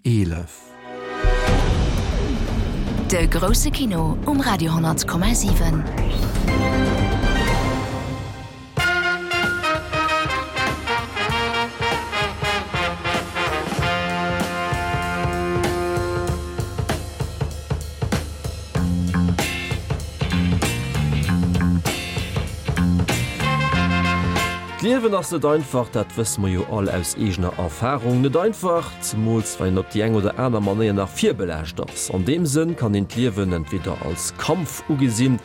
11. De grousse Kino um Radio 10,7. D'Liewen ass net einfach, dat wësse mer jo all aus eegener Erfarung. Net einfach, zemools wann een op déi eng oder aner Manéier nach virbelaascht ass. An deem Sënn kann een d'Liewen entweder als Kampf ugesinn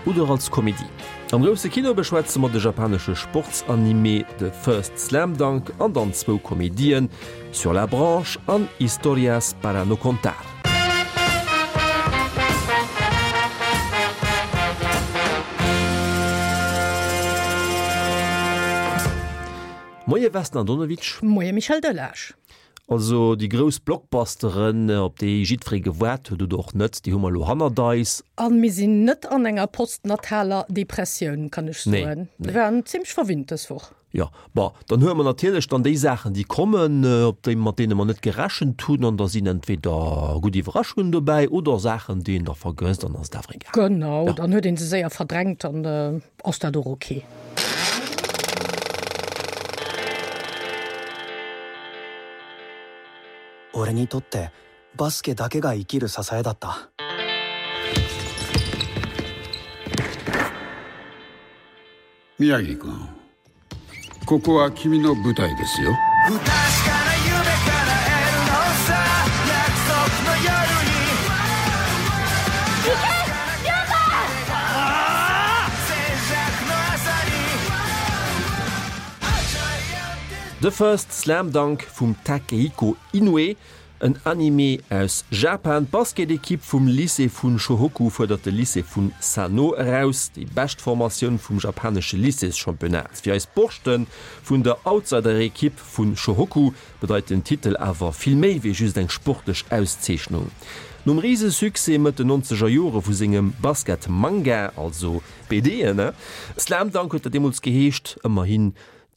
oder als Komedie. Am grousse Kino beschwätze mer de japanesche Sportsanime The First Slam Dunk an dann zwou Komedien, Sur la branche an Historias para no contar. Moie Vesna Andonovic. Moie Michel Delage. Also déi grouss Blockbusteren, op déi jiddweree gewaart huet oder och net, déi hu mer elo hannert eis. A mir sinn net an enger postnataler Depressioun, kann ech soen. Mir waren zimmlech verwinnt dës Woch. Jo, bon, dann huele mer natierlech dann déi Saachen, déi kommen, op déi, mat deene mer net gerechent hunn, an da sinn entweder gutt Iwwerraschungen dobäi oder Saachen, déi een da vergësst, an dann ass et awer egal. Genau, dann huet ee se séier verdrängt, dann ass dat och ok. 俺にとってバスケだけが生きる支えだった宮城君ここは君の舞台ですよ The First Slam Dunk vum Takehiko Inoue, en Anime aus Japan. D'Basketekipp vum Lycée vun Shohoku fuerdert de Lycée vun Sano eraus, déi bescht Formatioun vum japanesche Lycéeschampionnat. Fir eis Borschte vun der Outsiderekipp vun Shohoku bedeit den Titel awer vill méi wéi just eng sportlech Auszeechnung. Nom Risesuccès Mëtt den nonzeger Jore vu sengem Basket-Manga, also BDen, Slam Dunk huet dat deemools geheescht, ëmmerhi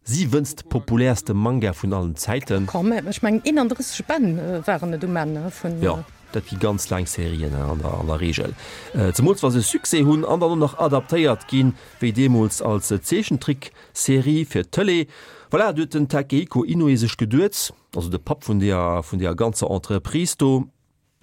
siwënst populäerste Manga vun allen Zäiten. Quand même, ech mengen 31 Bänn waren et um Enn vun. Jo, dat gi ganz laang Serien an der Reegel, zemools wa se Succès hunn an dann och nach adaptéiert ginn, wéi deemools als Zeechentrickserie fir d'Tëlee. Voilà, du huet den Takehiko Inoue sech geduet, also de Papp vun deeër vun deeër ganzer Entreprise do,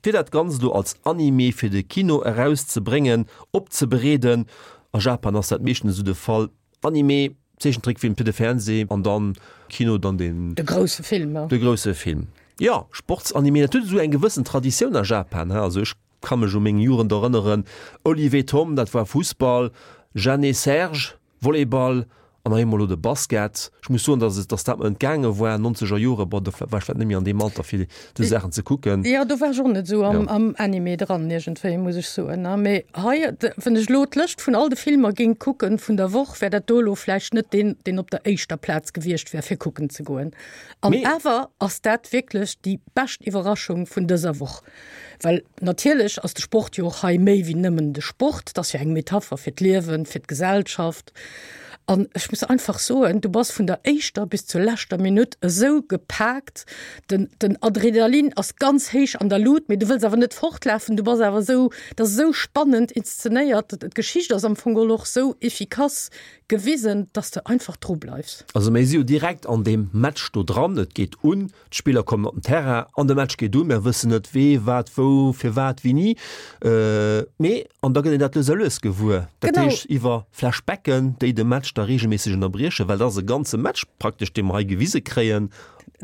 fir dat Ganzt elo als Anime fir de Kino erauszebréngen, opzebereeden. A Japan ass dat meeschtens esou de Fall, Anime, Zeechentrickfilm fir de Fernseh an dann Kino, dann den. De grousse Film. De grousse Film, jo. Sportsanime, dat huet esou eng gewëssen Traditioun a Japan, he. Also ech ka mech u meng Jugend erënneren, Olive et Tom, dat war Fussball, Jeanne et Serge, Volleyball an hei emol elo de Basket. Ech muss soen, dass et, dass dat mer entgaange war, nonzeger Jore, bon, do war ech vläicht net méi an deem Alter fir déi Saachen ze kucken. Jo, do war ech och net esou am, am Anime dran iergendwéi, muss ech soen. Mee hei, wann ech elo d'Lëscht vun all de Filmer géing kucken vun der Woch, wär dat do elo vläicht net deen, deen op der éischter Plaz gewiescht wär fir kucken ze goen. An awer ass dat wierklech déi bescht Iwwerraschung vun dëser Woch. Well natierlech ass de Sport jo och hei méi wéi nëmmen de Sport, et ass jo eng Metapher fir d'Liewen, fir d'Gesellschaft. An ech muss einfach soen, du bass vun der éischter bis zur leschter Minutt esou gepaakt, den, den Adrenalin ass ganz héich an der Lut, mee du wëlls awer net fortlafen, du bass awer esou, et ass esou spannend inszenéiert, d'Geschicht ass am Fong geholl och esou efficace gewisen, dass de einfach dru bleifs. Also mir si jo direkt an deem Match do dran, et geet un, D'Spiller kommen op den Terrain an de Match geet un. Mer wëssen net wee, wat, wou, firwat, wéini. Mee, an da gëtt een dat lues a lues gewuer. Dat heescht iwwer Flashbacken, déi de Match da reegelméisseg ënnerbriechen, well dat ass e ganze Match praktesch, dee mer hei gewise kréien.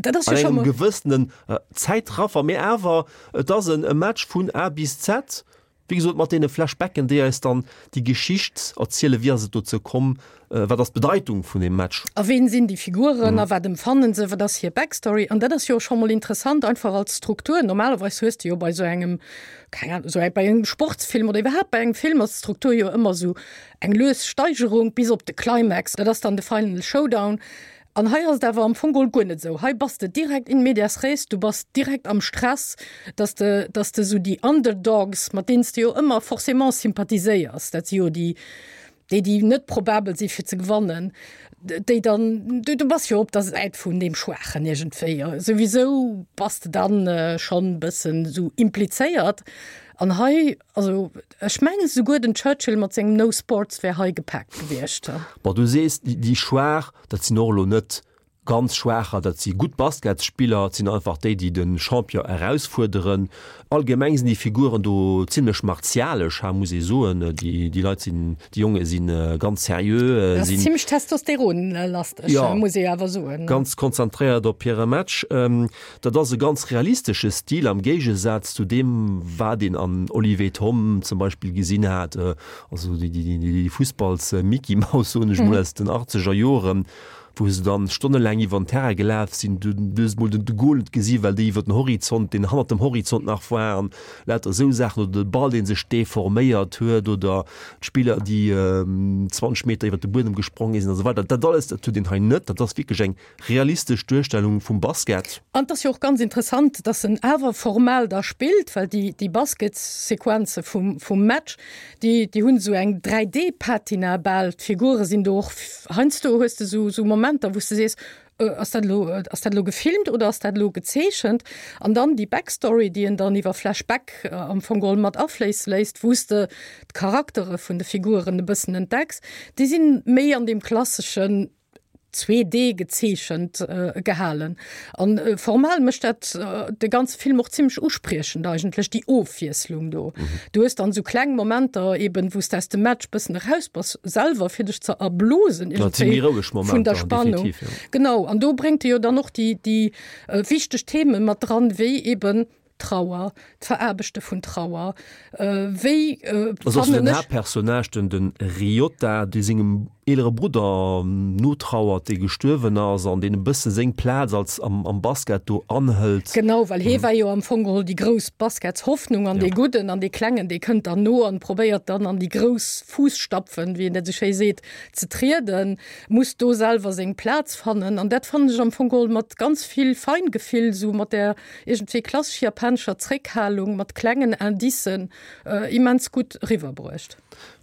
Dat ass jo scho mol. An engem gewëssenen Zäitraffer. Mee awer, et ass e Match vun A bis Z. Wéi gesot, mat deene Flashbacken, déi eis dann déi Geschicht erzielen, wéi ass et dozou komm, wat ass d'Bedeitung vun deem Match. A ween sinn déi Figuren a wat emfannen se, wat ass hir Backstory. An dat ass jo och scho mol interessant, einfach als Struktur. Normalerweis hues de jo bei esou engem, keng Ahnung, esou bei engem Sportsfilm oder iwwerhaapt bei engem Film ass d'Struktur jo ëmmer esou eng lues Steigerung bis op de Climax, dat ass dann de Final Showdown. An hei ass et awer am Fong geholl guer net esou. Hei bass de direkt in medias res, du bass direkt am Stress, dass de, dass de esou déi Underdogs, mat deenen s de jo ëmmer forcément sympathiséiers, dat si jo déi, déi, déi net probabel si fir ze gewannen. Déi dann, du, du bass jo op der Säit vun deem Schwaachen iergendwéi. Souwisou bass de dann schonn e bëssen esou implizéiert. An hei, also ech mengen esouguer den Churchill mat sengem No Sports wär hei gepaakt gewiescht. Bon, du sees, déi Schwaach, dat sinn och elo net ganz Schwaacher, dat si gutt Basketsspiller, et sinn einfach déi, déi de Champion erausfuerderen. Allgemeng sinn déi Figuren do zimlech martialesch, ha muss ee soen. Déi Leit sinn, déi Jonge si ganz seriö. Dat ass zimlech testosteronlasteg, muss ee awer soen. Ganz konzentréiert op hire Match. Dat ass e ganz realistesche Stil am Géigesaz zu deem, wat een an Olive et Tom zum Beispill gesinn hat, also déi Fussballs-Micky-Maus, soen ech mol, aus den achtzeger Joren. wou se dann stonnelaang iwwer den Terrain gelaf sinn, du hues mol den de Goal net gesi well déi iwwer den Horizont, deen hannert dem Horizont nach war an lauter esou Saachen oder de Ball dee sech deforméiert huet oder d'Spiller déi 20 Meter iwwer de Buedem gespronge sinn a sou weider. Dat alles, dat huet een hei net. Dat ass wierklech eng realistesch Duerstellung vum Basket. An et ass jo och ganz interessant, dass en awer formal da spillt, well déi déi Basketssequenze vum vum Match, Déi, déi hunn esou eng 3D-Patina bal. D'Figure sinn do och, heiansdo hues de esou, esou Momenter, wou s de sees, Ass dat elo, ass dat elo gefilmt oder ass dat elo gezeechent? An dann déi Backstory, déi en dann iwwer Flashback am Fong geholl mat afléisse léisst, wou s de d'Charaktere vun de Figuren e bëssen entdecks, déi sinn méi an deem klasseschen 2D gezeechent gehalen. An formal mécht dat de ganze Film och zimmlech uspriechend eigentlech, déi Ofwiesslung do. Du hues dann esou kleng Momenter eben, wou s de aus dem Match bëssen eraus bass selwer, fir dech ze erblosen iergendwéi vun der Spannung. Genau, an do bréngt e jo dann och déi déi wichteg Themen mat dran, wéi eben Trauer, d'Veraarbechte vun Trauer, wéi fannen ech. Den Haaptpersonnage, den de Ryota, dee sengem eelere Brudder notrauert, dee gestuerwen ass an deen e bësse seng Plaz als am Basket do anhëlt. Genau, well hee war jo am Fong geholl déi grouss Basketshoffnung an dee Gudden an dee Klengen, dee kënnt dann no an probéiert dann an déi grouss Fuusstapfen, wéi een dat esou schéi seet, ze trieden, muss do selwer seng Plaz fannen. An dat fannen ech am Fong geholl mat ganz vill Feingefill, esou mat där iergendwéi klassesch japanescher Zréckhalung mat klengen Indicen immens gutt eriwwerbruecht.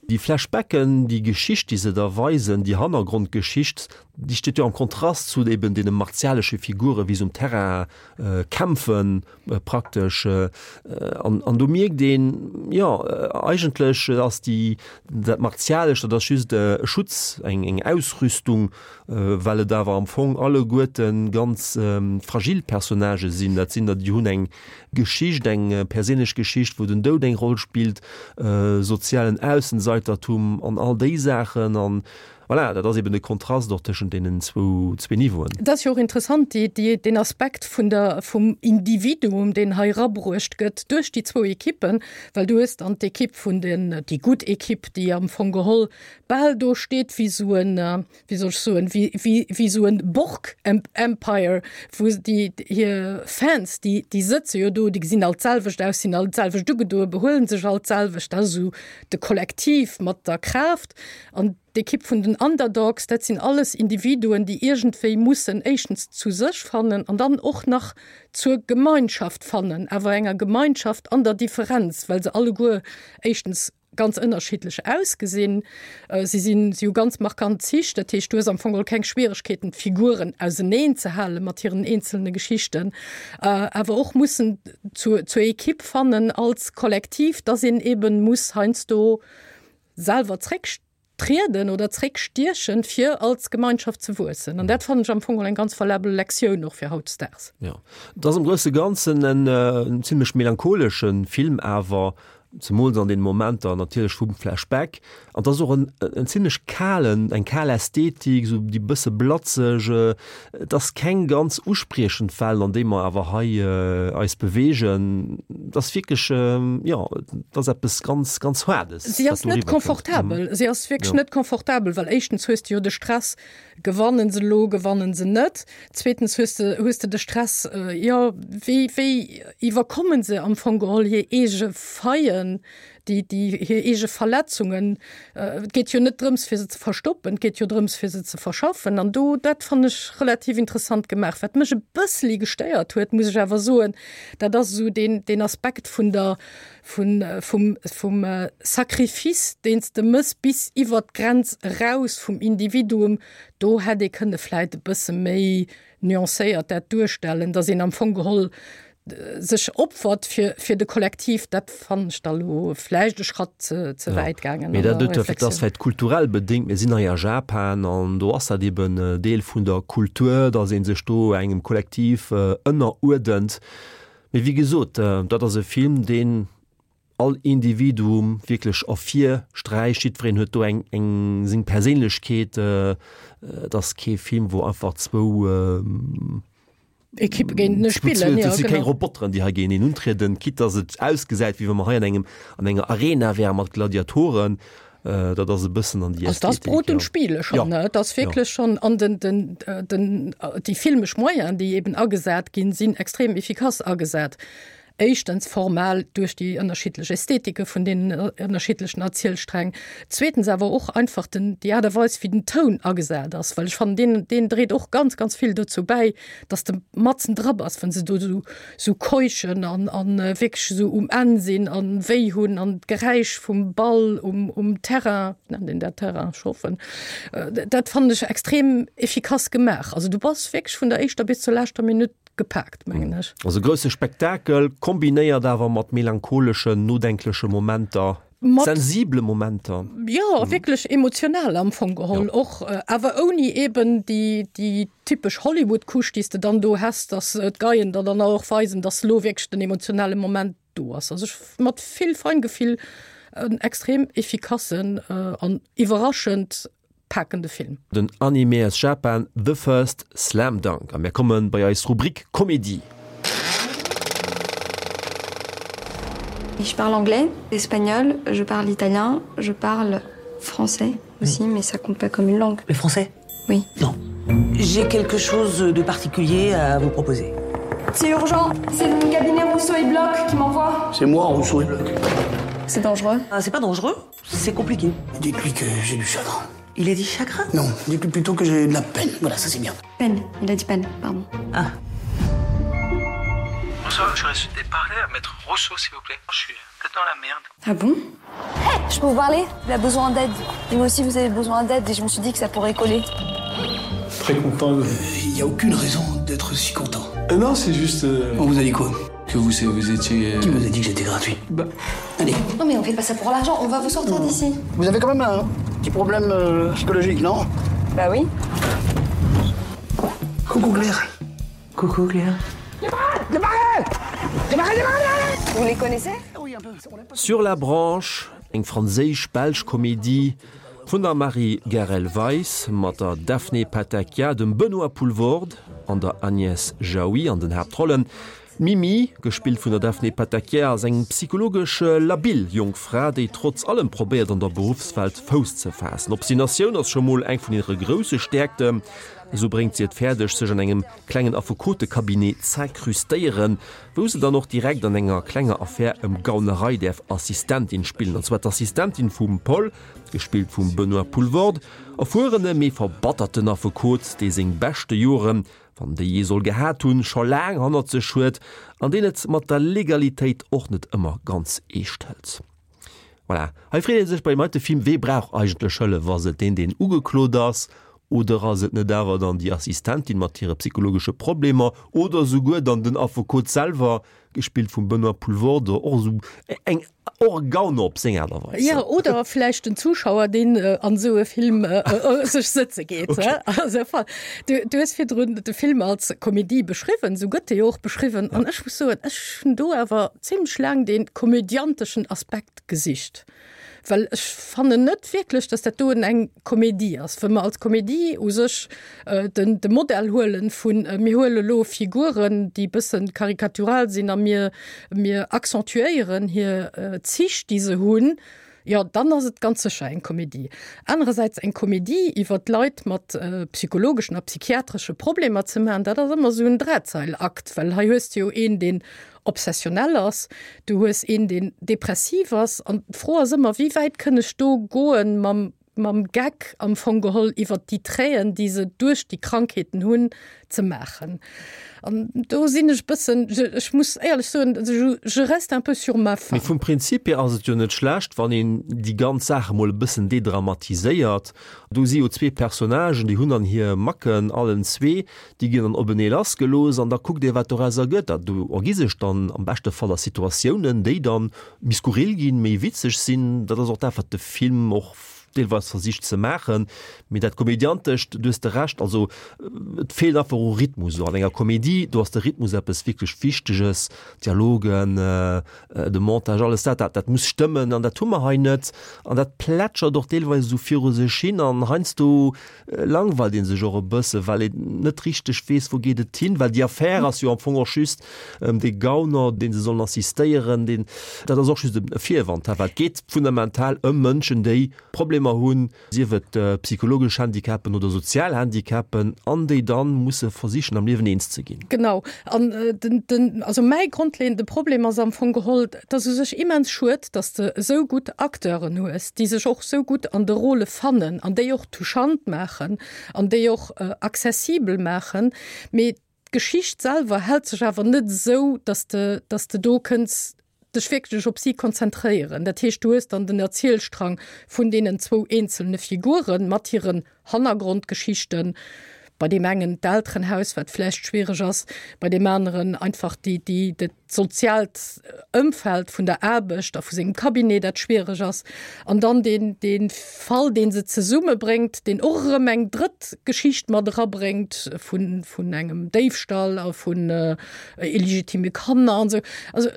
Déi Flashbacken, déi Geschicht, déi se da weisen, déi Hannergrondgeschicht, déi steet jo am Kontrast zu eben deene martialesche Figuren, wéi se um Terrain kämpfen praktesch. An, an do mierkt een, jo, eigentlech ass déi, dat Martialescht, dat ass just e Schutz, eng, eng Ausrüstung, well et awer am Fong alleguerte ganz fragil Personnagë sinn. Dat sinn der, déi hunn eng Geschicht, eng perséinlech Geschicht, wou den Doud eng Roll spillt, sozialen Aussenseitertum an all déi Saachen. An voilà, dat ass eben de Kontrast och tëschent deenen zwou, zwee Niveauen. Et ass jo och interessant, déi, déi, deen Aspekt vun der, vum Individuum, deen hei erabruecht gëtt duerch déi zwou Ekippen, well du hues dann d'Ekipp vun den, déi gutt Ekipp, déi am Fong geholl bal do steet wéi esou en, wéi soll ech soen, wéi, wéi, wéi esou en Borg-Empire, wou déi hir Fans, déi, déi sëtze jo do, déi gesinn all d'selwecht aus, sinn all d'selwecht ugedoen, behuelen sech all d'selwecht, dat ass esou de Kollektiv mat der Kraaft. An d'Ekipp vun den Underdogs, dat sinn alles Individuen, déi iergendwéi mussen éischtens zu sech fannen an dann och nach zur Gemeinschaft fannen, awer enger Gemeinschaft an der Differenz, well se alleguer éischtens ganz ënnerschiddlech ausgesinn. Si sinn, si hu ganz markant Zich, dat heescht, du hues am Fong geholl keng Schwieregkeeten, d'Figuren auseneen ze hale mat hiren eenzelne Geschichten, awer och mussen zur, zur Ekipp fannen als Kollektiv, dass een eben muss heiansdo selwer zréck trieden oder zréckstiechen, fir als Gemeinschaft ze wuessen. An dat fannen ech am Fong geholl eng ganz valabel Lektioun och fir hautdesdaags. Jo, et ass am grousse Ganzen en zimlech melancholesche Film awer, zemools an den Momenter natierlech vum Flashback. An et ass och en en zimlech kalen, eng kal Ästhetik, esou déi bësse blatzeg. Et ass keng ganz uspriechend Welt, an déi mer awer hei eis beweegen. Et ass wierklech, jo, et ass eppes ganz, ganz Haardes, Si ass net confortabel. Si ass wierklech net confortabel, well éischtens hues de jo de Stress, gewannen se elo, gewannen se net? Zweetens hues de, hues de de Stress, jo, wéi, wéi iwwerkommen se am Fong geholl hir eege Faillen? Déi, déi hir eege Verletzungen, et geet jo net drëms, fir se ze verstoppen, et geet jo drëms, fir se ze verschaffen. An do, dat fannen ech relativ interessant gemaach. Wat mech e bësseli gestéiert huet, muss ech awer soen, dat ass esou deen, deen Aspekt vun der, vun, vum, vum Sacrifice, deen s de mëss bis iwwert d'Grenz eraus vum Individuum. Do hätt ee kënne vläit e bësse méi nuancéiert dat duerstellen, datt een am Fong geholl sech opfert fir, fir de Kollektiv, dat fannen ech da lo vläicht e Schratt ze, ze wäit gaangen. Mee dat dat ass vläicht kulturell bedéngt. Mir sinn hei a Japan an do ass dat eben Deel vun der Kultur, datt ee sech do engem Kollektiv ënneruerdent. Mee wéi gesot, dat ass e Film, deen all Individuum wierklech ervirsträicht. Jiddwereen huet do eng, eng seng Perséinlechkeet. Et ass kee Film, wou einfach zwou Ekippe géintenee spillen. Et si keng Roboteren, déi hei géinteneen untrieden, quitte dass et ausgesäit, wéi wa mer hei an engem, an enger Arena wäre mat Gladiatoren. Dat ass e bëssen an déi Ästhetik. Also dat ass Brot und Spiele schonn, ne? Et ass wierklech schonn, an den, den, den, déi filmesch Moyenen, déi eben agesat ginn, sinn extrem efficace agesat. Éischtens formal duerch déi ënnerschiddlech Ästhetike vun deenen ënnerschiddlechen Erzielsträng, zweetens awer och einfach den, déi Aart a Weis, wéi den Toun agesat ass, well ech fannen, deen, deen dréit och ganz, ganz vill dozou bäi, dass de matzen dra bass, wann se do esou, esou keuchen an, an wierklech esou um Enn sinn an wéi hunn an d'Geräisch vum Ball um, um Terrain, nennt een dat Terrain, ech hoffen, dat fannen ech extrem efficace gemaach. Also du bass wierklech vun der éischter bis zur leschter Minutt gepaakt, mengen ech. Also grousse Spektakel, kombinéiert awer mat melancholeschen, nodenkleche Momenter, sensible Momenter. Jo, wierklech emotional am Fong geholl och, awer ouni eben déi, déi typesch Hollywood-Couche, déi s de dann do häss, dass d'Geien der dann och weisen, dass elo wierklech den emotionale Moment do ass. Also ech, mat vill Feingefill, en extrem efficassen an iwwerraschend pakende Film. Den Anime aus Japan The First Slam Dunk. A mir komme bei eis Rubrik Komedie. Je parle anglais, espagnol, je parle italien, je parle français aussi, mais ça compte pas comme une langue. Le français Oui. Non. J'ai quelque chose de particulier à vous proposer. C'est urgent, c'est mon cabinet Rousseau et Bloch qui m'envoie. C'est moi Rousseau et Bloch. C'est dangereux. Ah, c'est pas dangereux, c'est compliqué. Dites-lui que j'ai du chagrin. Il a dit chagrin Non, dites-lui plutôt que j'ai de la peine. Voilà, ça c'est bien. Peine, il a dit peine, pardon. Ah. Bonsoir, j'aurais souhaité parler à maître Rousseau, s'il vous plaît. Je suis peut-être dans la merde. Ah bon hey, Je peux vous parler Il a besoin d'aide. Et moi aussi, vous avez besoin d'aide et je me suis dit que ça pourrait coller. Très content. Il euh, n'y a aucune raison d'être si content. Euh, non, c'est juste. Euh... On vous a dit quoi Que vous, vous étiez. Euh, Qui vous a dit que j'étais gratuit bah. Allez. Non mais on fait pas ça pour l'argent, on va vous sortir d'ici. Vous avez quand même un petit problème euh, psychologique, non Bah oui. Coucou Claire. Coucou Claire. Vous les connaissez Sur la branche, eng franséisch-belsch Komedie vun der Marie Garel-Weis mat der Daphné Patakia, dem Benoît Poelvoorde an der Agnès Jaoui an den Haaptrollen. D'Mimi, gespillt vun der Daphné Patakia, ass eng psychologesch labil jonk Fra, déi trotz allem probéiert an der Beruffswelt Fouss ze faassen. Obstinatioun ass scho mol eng vun hire grousse Stäerkten. Esou bréngt si et fäerdeg, sech an engem klengen Affekotecabinet z'incrustéieren, wou se dann och direkt an enger klenger Affär ëm Gaunerei däerf Assistentin spillen, an zwar d'Assistentin vum Paul, gespillt vum Benoît Poelvoorde, erfuerene mee verbatterten Affekot, dee seng beschte Joren, wann déi jee soll gehat hunn, scho laang hannert sech huet an deen et mat der Legalitéit och net ëmmer ganz eescht hëlt. Voilà, hei freet ee sech bei deem heite Film, wee brauch eigentlech Hëllef? Ass et deen, deen ugeklot ass, oder ass et net awer dann déi Assistentin mat hire psychologesche Problemer oder souguer dann den Affekot selwer, gespillt vum Benoît Poelvoorde, och esou eng och e Gauner op seng Aart a Weis. Jo, oder vläicht den Zuschauer, deen an esou e Film sech sëtze geet. Okay. Also, du, du hues virdrun de Film als Komedie beschriwwen, esou gëtt e jo och beschriwwen. An ech muss soen, ech hunn do awer zimlech laang dee komödianteschen Aspekt gesicht, well ech fannen net wierklech, dass dat doen eng Komedie ass. Wa mer als Komedie u sech den de Modell huelen vun mir huele lo Figuren, déi bëssen karikatural sinn a mir mir accentuéieren hir Zich, déi se hunn. Jo, dann ass et ganz sécher eng Komedie. Anerersäits eng Komedie iwwer Leit mat psychologeschen a psychiatresche Problemer ze maachen, dat ass ëmmer esou en Drahtseilakt, well hei hues de jo een, deen obsessionell ass, du hues een, deen depressiv ass an d'Fro ass ëmmer, wéi wäit kënn ech do goen mam mam Geck am Fong geholl iwwert déi Traiten, déi se duerch déi Krankheeten hunn, ze maachen. An do sinn ech e bëssen, ech muss éierlech soen, je reste un peu sur ma faim. Mee vum Prinzip hier ass et jo net schlecht, wann een déi ganz Saach emol e bëssen dedramatiséiert. Do si jo zwee Personnagen, déi hunn dann hir Macken allen zwee, déi ginn dann openee lassgelooss an da kuckt ee wat dorauser gëtt. A do ergi sech dann am beschte Fall da Situatiounen, déi dann méi skurril ginn, méi witzeg sinn. Dat ass och dat, wat de Film och deelweis versicht ze maachen. Mee dat Komödiantescht, du hues de Recht, also et feelt einfach u Rhythmus. An enger Komedie, do ass de Rhythmus eppes wierklech Wichteges, Dialogen, de Montage, alles dat, dat, dat muss stëmmen an dat hu mer hei net. An dat plätschert och deelweis esou viru sech hin an heiansdo langweilt ee sech och e bësse well een net richteg weess, wou geet et hin, well déi Affär ass jo am Fong och just ëm dee Gauner, dee se sollen assistéieren, deen, dat ass och just e Virwand, well et geet fundamental ëm Mënschen, déi Problemer hunn, sief et psychologesch Handicapen oder sozial Handicapen, an déi dann musse versichen am Liewen eens ze ginn. Genau, an den, den, also mäi grondleeënde Problem ass am Fong geholl, et ass u sech immens schued, datt s de esou gutt Acteuren hues, déi sech och esou gutt an de Rôle fannen an déi och touchant maachen an déi och accessibel maachen, mee d'Geschicht selwer hält sech awer net esou, datt de, datt de do kënns dech wierklech op si konzentréieren. Dat heescht, du hues dann den Erzielstrang vun deenen zwou eenzelne Figuren mat hiren Hannergrondgeschichten, bei deem engen d'Elterenhaus, wat vläicht schwiereg ass, bei deem aneren einfach déi, déi, dat soziaalt Ëmfeld vun der Aarbecht a vu sengem Cabinet, dat schwiereg ass. An dann deen, dee Fall, dee se zesummebréngt, deen och erëm eng drëtt Geschicht mat erabréngt vun, vun engem Déifstall a vun illegitime Kanner an esou. Also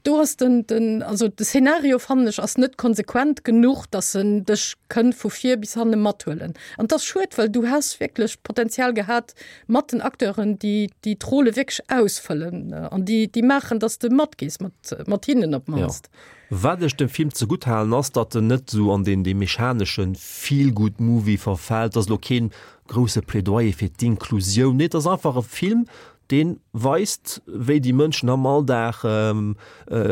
do ass den, den, also de Szenario, fannen ech, ass net konsequent genuch, dass en dech kënnt vu vir bis hanne mathuelen. An et ass schued, well du häss wierklech d'Potenzial gehat mat den Acteuren, déi déi d'Rôle wierklech ausfëllen an déi déi maachen, dass de matgees mat mat hinnen op d'mannst. Jo. Wat ech dem Film zegutt halen ass, datt en net esou an deen dee mechanesche Feel-Good-Movie verfält. Et ass elo keen grousse Plädoyer fir d'Inklusioun. Nee, et ass einfach e Film, dee weist, wéi déi Mënschen am Alldag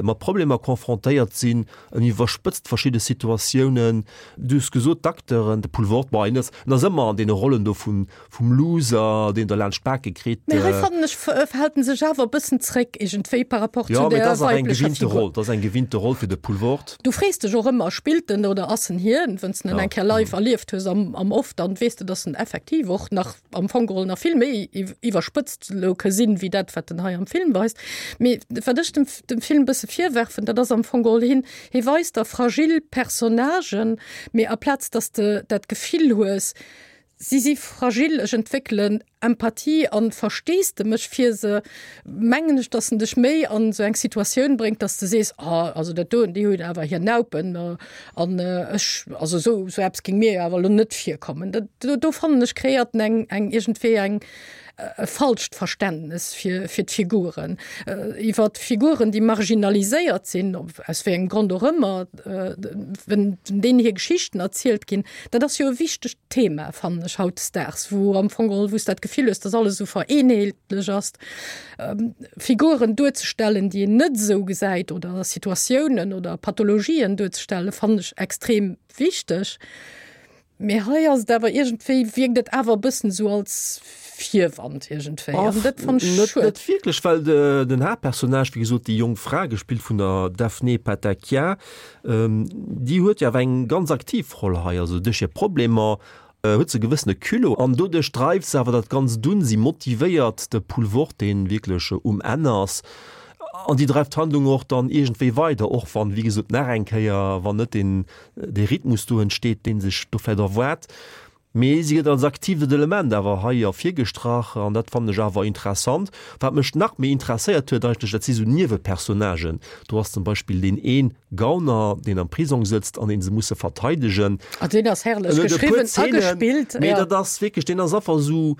mat Problemer confrontéiert sinn. En iwwerspëtzt verschidde Situatiounen. Du hues gesot, d'Acteuren, de Poulvord, bon, en ass, en ass ëmmer an deene Rollen do vum, vum Loser, deen der laanscht d'Bake kritt. Mee hei fannen ech, hält en sech awer e bëssen zréck iergendwéi par rapport zu der weiblecher Figur. Dat ass eng gewinnte Roll fir de Poulvord. Du frees dech och ëmmer, spillt en oder ass en hien? Wenn's de en eng Kéier live erlieft hues am, am Off, dann weess de, dass en effektiv och nach, am Fong geholl nach vill méi iwwerspëtzt elo ka sinn, wéi dat, wat en hei am Film weist. Mee wat ech dem, dem Film e bësse virwerfen, dat ass am Fong geholl, hien, hie weist der fragil Personnagen, mee aplaz dass de dat Gefill hues, si si fragil, ech entwéckelen Empathie an Versteesdemech fir se, mengen ech, dass en dech méi an esou eng Situatioun bréngt, dass de sees, ah, also dat doen, déi hunn awer hir Naupen an ech, also esou, esou eppes géing mir jo awer elo net virkommen. Dat, do, do fannen ech, kreéiert en eng, eng iergendwéi eng, e falscht Verständnes fir, fir d'Figuren. Iwwer Figuren, déi marginaliséiert sinn, aus wéi engem Grond och ëmmer, wenn deenen hir Geschichten erzielt ginn, dat ass jo e wichtegt Thema, fannen ech, hautdesdaags, wou am Fong geholl, wou s dat Gefill hues, dass alles esou vereenheetlech ass, Figuren duerzestellen, déi een net esou gesäit oder Situatiounen oder Pathologien duerzestellen, fannen ech extrem wichteg. Mee hei ass et awer iergendwéi, wierkt et awer e bëssen esou als Virwand iergendwéi. An dat fannen ech Net, schued. net wierklech, well de, den Haaptpersonnage, wéi gesot, déi jonk Fra, gespillt vun der Daphné Patakia, déi huet jo awer eng ganz aktiv Roll hei. Also duerch hir Problemer huet se e gewëssene Culot an doduerch dreift se awer dat Ganzt un. Si motivéiert de Poulvord, dee wierklech um Enn ass, an déi dreift d'Handlung och dann iergendwéi weider, och wann, wéi gesot, nach eng Kéier, wann net deen, dee Rhythmus do entsteet, dee sech do vläicht erwaart. Mee si gëtt als aktivet Element awer hei ervirgestrach an dat fannen ech awer interessant. Wat mech nach méi interesséiert huet eigentlech, dat si sou Niewepersonnagen. Do ass zum Beispill deen een Gauner, deen am Prisong sëtzt an deen se musse verteidegen. Ah, deen ass herrlech En huet e puer geschriwwen a Zeenen, gespillt, mee ja. dat ass wierklech, deen ass einfach sou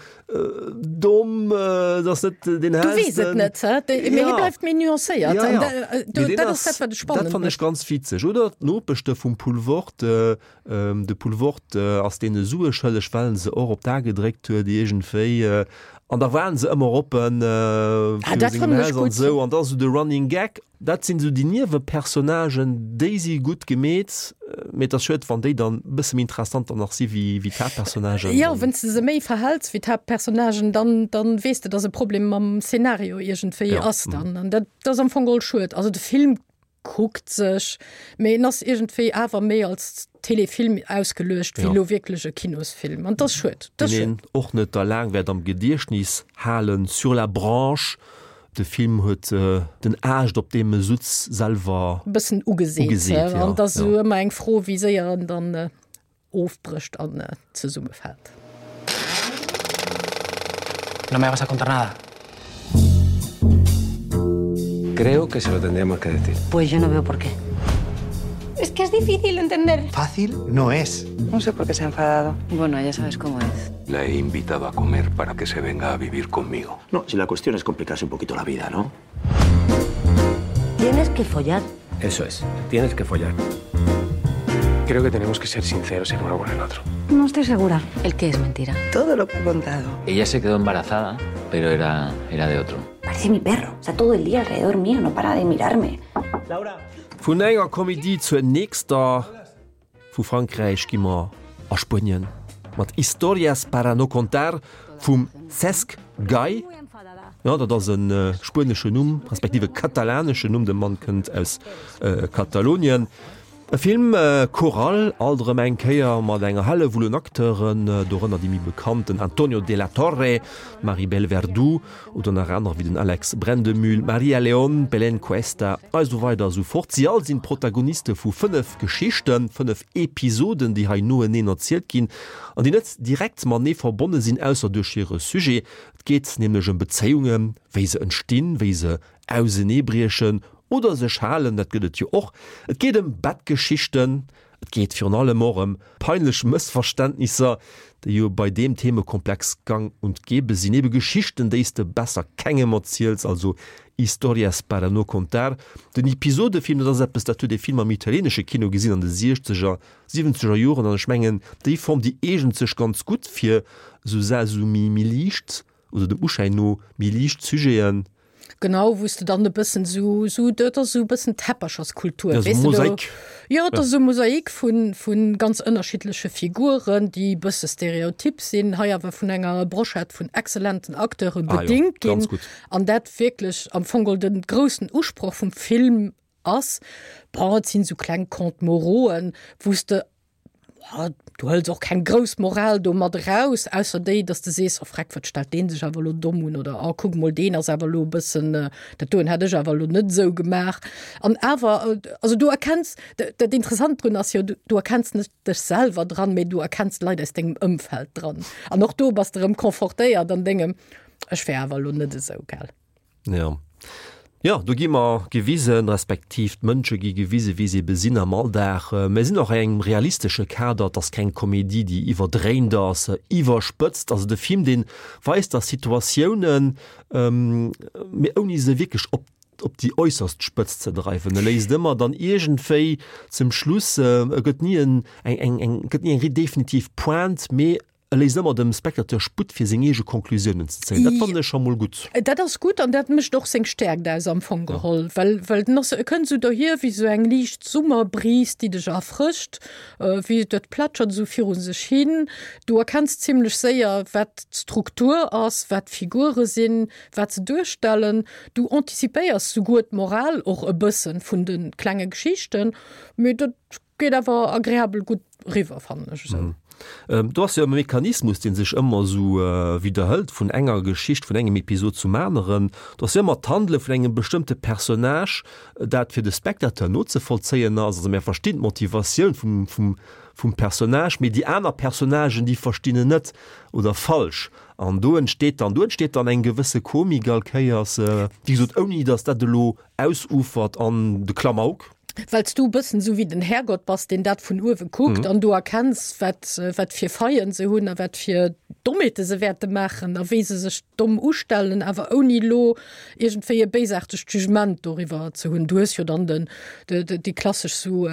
domm, dat ass net deen Du weess et hellsten. net, hä? Mee hie bleift méi nuancéiert Ja, an ja. da, Mee deen dat ass dat, wat et dat spannend fannen ech mécht. ganz witzeg. Oder d'Nopechte vum Poulvord, De Poulvord ass deene Sue schëlleg, well en se och op d'A gedréckt huet iergendwéi. An da waren se ëmmer oppen viru sengem Haus an esou. An da esou de Running Gag. Dat sinn esou déi Niewepersonnagen, déi si gutt gemeet. Mee et ass schued, wann déi dann e bësse méi interessant dann nach si wéi d'Haaptpersonnagen. Jo, wann s de se méi verhäls wéi d'Haaptpersonnagen, dann, dann weess de, dass e Problem mam Szenario iergendwéi ass dann. An dat ass am Fong geholl schued. Also de Film kuckt sech, mee en ass iergendwéi awer méi als Telefilm ausgeluecht wéi elo wierklech e Kinosfilm an dat ass schued. Dat ass schued. Deen een och net der laang wäert am Gediechtnis halen. Sur la branche, de Film huet den Aascht op deem e sutz selwer e bëssen ugeseet, an et ass esou ëmmer eng Fro wéi séier en dann ofbrécht an zesummefält. No me vas a contar nada. Creo que se lo tendríamos que decir. Pues yo no veo por qué. Es que es difícil entender. Fácil no es. No sé por qué se ha enfadado. Bueno, ya sabes cómo es. La he invitado a comer para que se venga a vivir conmigo. No, si la cuestión es complicarse un poquito la vida, ¿no? Tienes que follar. Eso es, tienes que follar. Creo que tenemos que ser sinceros el uno con el otro. No estoy segura. ¿El qué es mentira? Todo lo que he contado. Ella se quedó embarazada, pero era, era de otro. Parece mi perro. Está todo el día alrededor mío, no para de mirarme. Laura. Vun enger Komedie zur nächster. Vu Frankräich gi mer a Spuenien mat Historias para no contar vum Cesc Gay. Jo, dat ass e spueneschen Numm, respektiv e katalaneschen Numm, de Mann kënnt aus Katalonien. E Film choral, alt erëm eng Kéier mat enger Hellewull un Acteuren, dorënner déi méi bekannt, den Antonio de la Torre, d'Maribel Verdú oder nach anerer wéi den Alex Brendemühl, d'Maria León, d'Belén Cuesta a esou weider a sou fort. Si all sinn d'Protagoniste vu 5 Geschichten, 5 Episoden, déi hei noeneen erzielt ginn an déi net direkt matenee verbonne sinn, ausser duerch hire Sujet. Et geet nämlech ëm Bezéiungen, wéi se entstinn, wéi se auseneebriechen oder sech halen, dat gëtt et jo och. Et geet ëm Bettgeschichten, et geet virun allem och ëm peinlech Mëssverständnisser, déi jo bei deem Themekomplex gang und gäbe sinn. Ebe Geschichten, déi s de besser kengem erziels, also Historias para no contar. Den Episodefilm, dat ass eppes, dat huet ee vill am italieenesche Kino gesinn an de siechzeger, siwwenzeger Joren an ech mengen, déi Form, déi eegent sech ganz gutt fir esou Sa, esou méi liicht oder dem Uschäin no méi liicht Sujeten. Genau, wou s de dann e bëssen esou, esou, dat ass esou e bëssen Teppercherskultur, Ja, weess esou de, do. Mosaik. Jo, et ass esou e Mosaik vun, vu ganz ënnerschiddleche Figuren, déi e bësse stereotyp sinn, hei awer vun enger Brochette vun exzellenten Acteure Ah jo, bedingt ginn. ganz gutt. An dat wierklech am Fong geholl de groussen Usproch vum Film ass. Bon, et sinn esou kleng Contes morauxen, wou s de Du hëls och keng grouss Moral do mat eraus, ausser déi, datt de sees, oh freck, wat stellt dee sech awer elo domm un oder oh kuck mol, deen ass awer elo e bëssen, dat doen hätt ech awer elo net esou gemaach. An awer, also du erkenns, dat Interessant drun ass jo, du erkenns net dech selwer dran, mee du erkenns d'Leit aus dengem Ëmfeld dran. An och do bass de erëm confortéiert an dengem, ech wär awer elo net esou, gell. Ja. Jo, do gi mer gewisen, respektiv d'Mënsche gi gewisen, wéi se ebe sinn am Alldag. Mer sinn och a engem realistesche Kader, et ass keng Komedie, déi iwwerdréint ass, iwwerspëtzt. Also de Film, dee weist der Situatiounen, mee ouni se wierklech op op déi äusserst Spëtzt ze dreiwen. E léisst ëmmer dann iergendwéi zum Schluss, e gëtt ni en eng eng eng gëtt ni eng definitiv Pointe, mee E léisst ëmmer dem Spectateur Sputt fir seng eege Conclusiounen ze zéien. Dat fannen ech scho mol gutt. Dat ass gutt an dat mécht och seng Stäerkt aus am Fong geholl, well well den ass, e kënnt esou dohier wéi esou eng liicht Summerbris, déi dech erfrëscht, wéi dat plätschert esou viru sech hin. Du erkenns zimlech séier, wat d'Struktur ass, wat d'Figure sinn, wat se duerstellen. Du anticipéiers souguer d'Moral och e bëssen vun de klenge Geschichten, mee dat geet awer agreabel gutt riwwer, fannen ech esou. Do ass jo e Mechanismus, dee sech ëmmer esou widderhëlt vun enger Geschicht, vun engem Episod zum aneren. Do ass jo ëmmer d'Handele vun engem bestëmmte Personnage, dat fir de Spectateur nozevollzéien ass. Also mär verstinn d'Motivatioun vum, vum, vum Personnage, mee déi aner Personnagen, déi verstinn en net oder falsch. An do entsteet dann, do entsteet dann eng gewësse Komik all Kéiers, wéi gesot, ouni datt dat elo ausufert an de Klamauk. Well s du e bëssen esou wéi den Härgott bass, deen dat vun uewe kuckt an du erkenns, wat, wat fir Faillen se hunn a wat fir Dommheete se wäerte maachen a wéi se sech domm ustellen, awer ouni elo iergendwéi e béisaartegt Jugement doriwwer ze hunn. Du hues jo dann den, de, de, déi klassesch sou,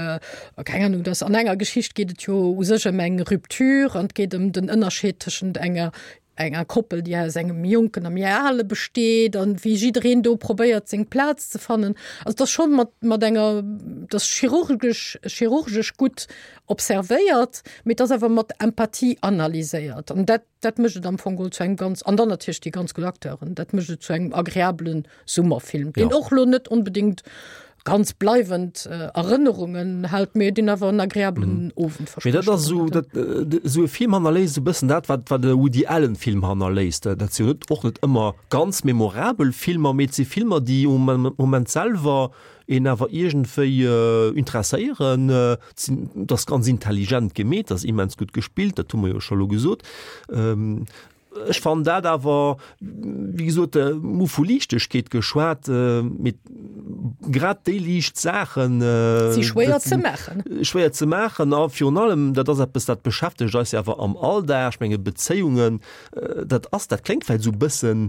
keng Ahnung, dass an enger Geschicht geet et jo u sech ëm eng Rupture an et geet ëm den Ënnerscheed tëschent enger enger Koppel, déi aus engem Jonken a méi Ale besteet an wéi jiddereen do probéiert seng Plaz ze fannen. Also et ass scho mat, mat enger, et ass chirurgesch, chirurgesch gutt observéiert, mee et ass awer mat Empathie analyséiert an dat, dat mécht et am Fong geholl zu engem ganz, an dann natierlech déi ganz gutt Acteuren, dat mécht et zu engem agreabelen Summerfilm, deen och lo net onbedéngt ganz bleiwend Erënnerungen hält, mee deen awer en agreabelen Owend verspricht. Mee dat ass esou, dat, esou e Film hannerléisst esou e bëssen dat, wat, wat e Woody Allen Film hannerléisst. Dat si jo net, och net ëmmer ganz memorabel Filmer, mee et si Filmer, déi um Moment selwer een awer iergendwéi interesséieren. Et sinn, et ass ganz intelligent gemeet, et ass immens gutt gespillt, dat hu mer jo scho lo gesot. Ech fannen dat awer, wéi gesot, mir hu vu Liichtegkeet geschwat, mee grad déi liicht Saachen si schwéier ze maachen. Schwéier ze maachen a virun allem, dat ass eppes, dat beschäftegt eis jo awer am Alldag, ech menge Bezéiungen, dat ass, dat kléngt vläicht esou e bëssen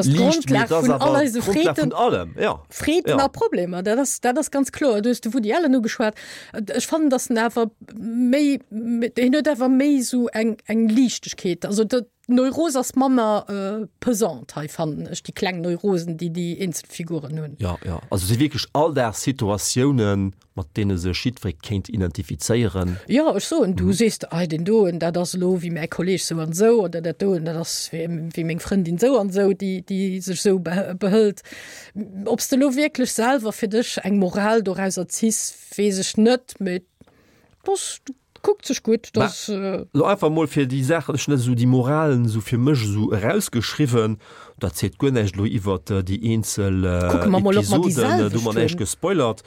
liicht, mee et ass awer d'Grondlag vun allem, jo. Freeden a Problemer, dat ass, dat ass ganz kloer. Du hues de Woody Allen ugeschwat. Ech fannen, datt en awer méi, hien huet awer méi esou eng, eng Liichtegkeet. Also dat, d'Neuros ass manner pesant hei, fannen ech, déi kleng Neurosen, déi déi eenzel Figuren hunn. Jo, jo, also et si wierklech Alldagssituatiounen, mat deene sech jiddweree kéint identifizéieren. Jo, ech soen, du sees, ei deen doen, dat ass elo wéi mäi Kolleeg sou an sou, oder dat doen, dat ass wéi meng Frëndin sou an sou, déi, déi sech sou behëlt. Ob s de elo wierklech selwer fir dech eng Moral dorauser ziss, weess ech net, mee dass kuckt sech gutt, dass. Lo einfach mol fir déi Saachen, ech hunn dat esou, déi Moralen esou fir mech esou erausgeschriwwen, dat seet guer näischt elo iwwert déi eenzel Kucke mer mol, ob mer déi Episoden, do hu mer näischt gespoilert.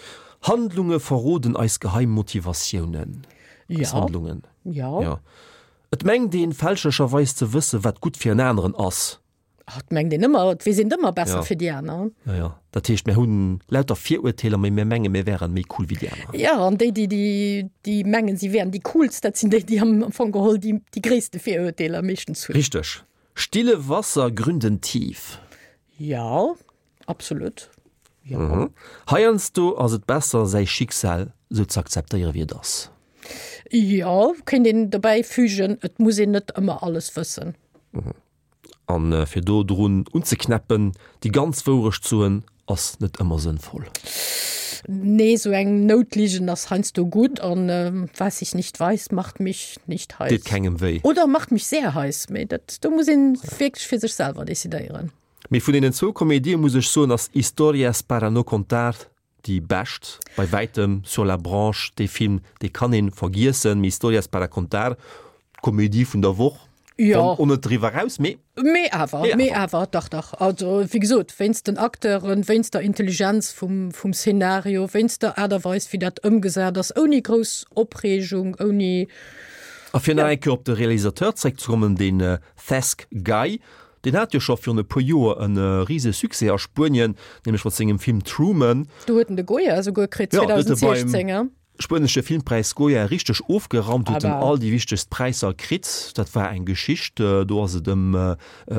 Handlunge verroden eis geheim Motivatiounen. Eis Handlungen. Jo. Jo. Et mengt een fälschlecherweis ze wëssen, wat gutt fir en aneren ass. Ah, et mengt een ëmmer, et weess een ëmmer besser ja. fir déi aner. Ja, ja. Dat heescht, mir hunn lauter Virurteeler, mee mir mengen, mir wären méi cool wéi déi aner. Ja, an déi, déi, déi, déi mengen, si wären déi coolst, dat sinn déi, déi am Fong geholl déi, déi gréisste Virurteeler meeschtens hunn. Richteg. Stille Wasser gründen tief. Ja, absolut. Ja. Mhm. Heiansdo ass et besser, säi Schicksal sou ze akzeptéiere wéi et ass. Jo, kéint een dobäi fügen, et muss een net ëmmer alles wëssen. Mhm. An fir do drun unzeknäppen, déi ganz Wourecht soen, ass net ëmmer sënnvoll. Nee, sou eng Noutligen ass heiansdo gutt an was ich nicht weiß, macht mich nicht heiß. Deet kengem wéi. Oder macht mich sehr heiß, mee dat, do muss een wierklech fir sech selwer decidéieren. Mee vun deenen zwou Komedie muss ech soen, ass Historias para no contar Déi bescht bei wäitem Sur la branche, dee Film dee kann een vergiessen, mee Historias para contar, d'Komödie vun der Woch, Jo. wann och net driwwer eraus, mee. Mee awer, mee awer, dach, dach. Also wéi gesot, wéinst den Acteuren, wéinst der Intelligenz vum, vum Szenario, wéinst der Aart a Weis wéi dat ëmgesat ass, ouni grouss Opreegung, ouni. A fir nach eng Kéier op de Realisateur zréckzekommen, den Cesc Gay, Deen hat jo scho virun e puer Joer e rise Succès a Spuenien, nämlech mat sengem Film Truman. Do huet en de Goya esouguer kritt 2016. Jo, spuenesche Filmpräis Goya richteg ofgeraumt, huet en all déi wichtegst Präisser kritt. Dat war eng Geschicht, do ass et ëm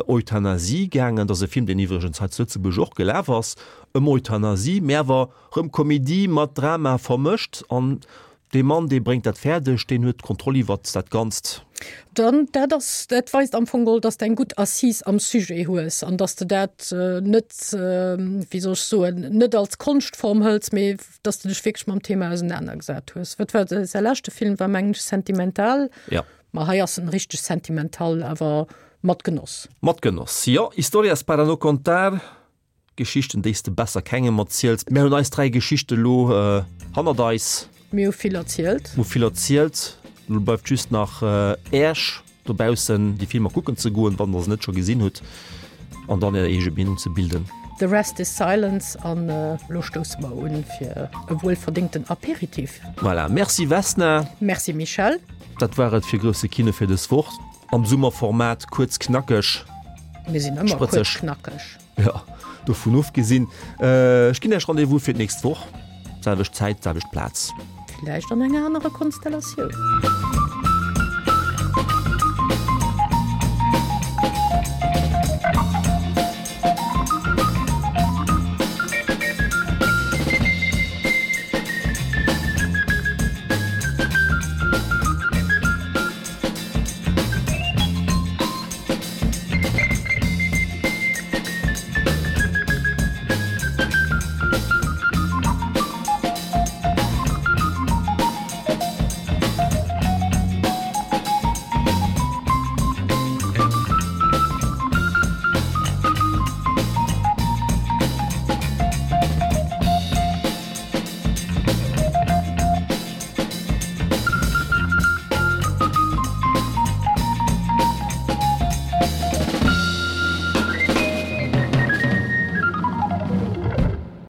Euthanasie gaangen. Dat ass e Film, deen iwwregens hei zu Lëtzebuerg och gelaf ass, ëm Euthanasie, mä awer rëm Komedie mat Drama vermëscht. An Dee Mann, dee bréngt dat fäerdeg, deen huet d'Kontroll iwwert dat Ganzt. Dann, dat ass, dat weist am Fong geholl, dass de eng gutt Assise am Sujet hues an dass de dat net, wéi soll ech soen, net als Konschtform hëls, mee dass de dech wierklech mam Thema ausenanergesat hues. Wat war säi leschte Film? War mengen ech Sentimental. Ja. Ma hei ass en richteg Sentimental, awer mat Genoss. Mat Genoss, jo. Historias para no contar. Geschichten, déi s de besser kengem erziels. Mär hunn eis 3 Geschichte lo hannert eis. Mir hu vill erzielt. Mir hu vill erzielt. Lo bleift just nach Äech dobaussen déi Filmer kucken ze goen, wann der se net scho gesinn hutt, an dann är eege Meenung ze bilden. The rest is silence an lo stousse mer un fir e wuelverdéngten Apéritif. Voilà, merci Vesna. Merci Michèle. Dat war et fir Grousse Kino fir dës Woch. Am Summerformat, kuerz, knackeg. Mir sinn ëmmer kuerz, knackeg. Jo, dovun ofgesinn, ech ginn Iech Rendez-vous fir d'nächst Woch, selwecht Zäit, selwecht Plaz. Villäicht an enger anerer Konstellatioun.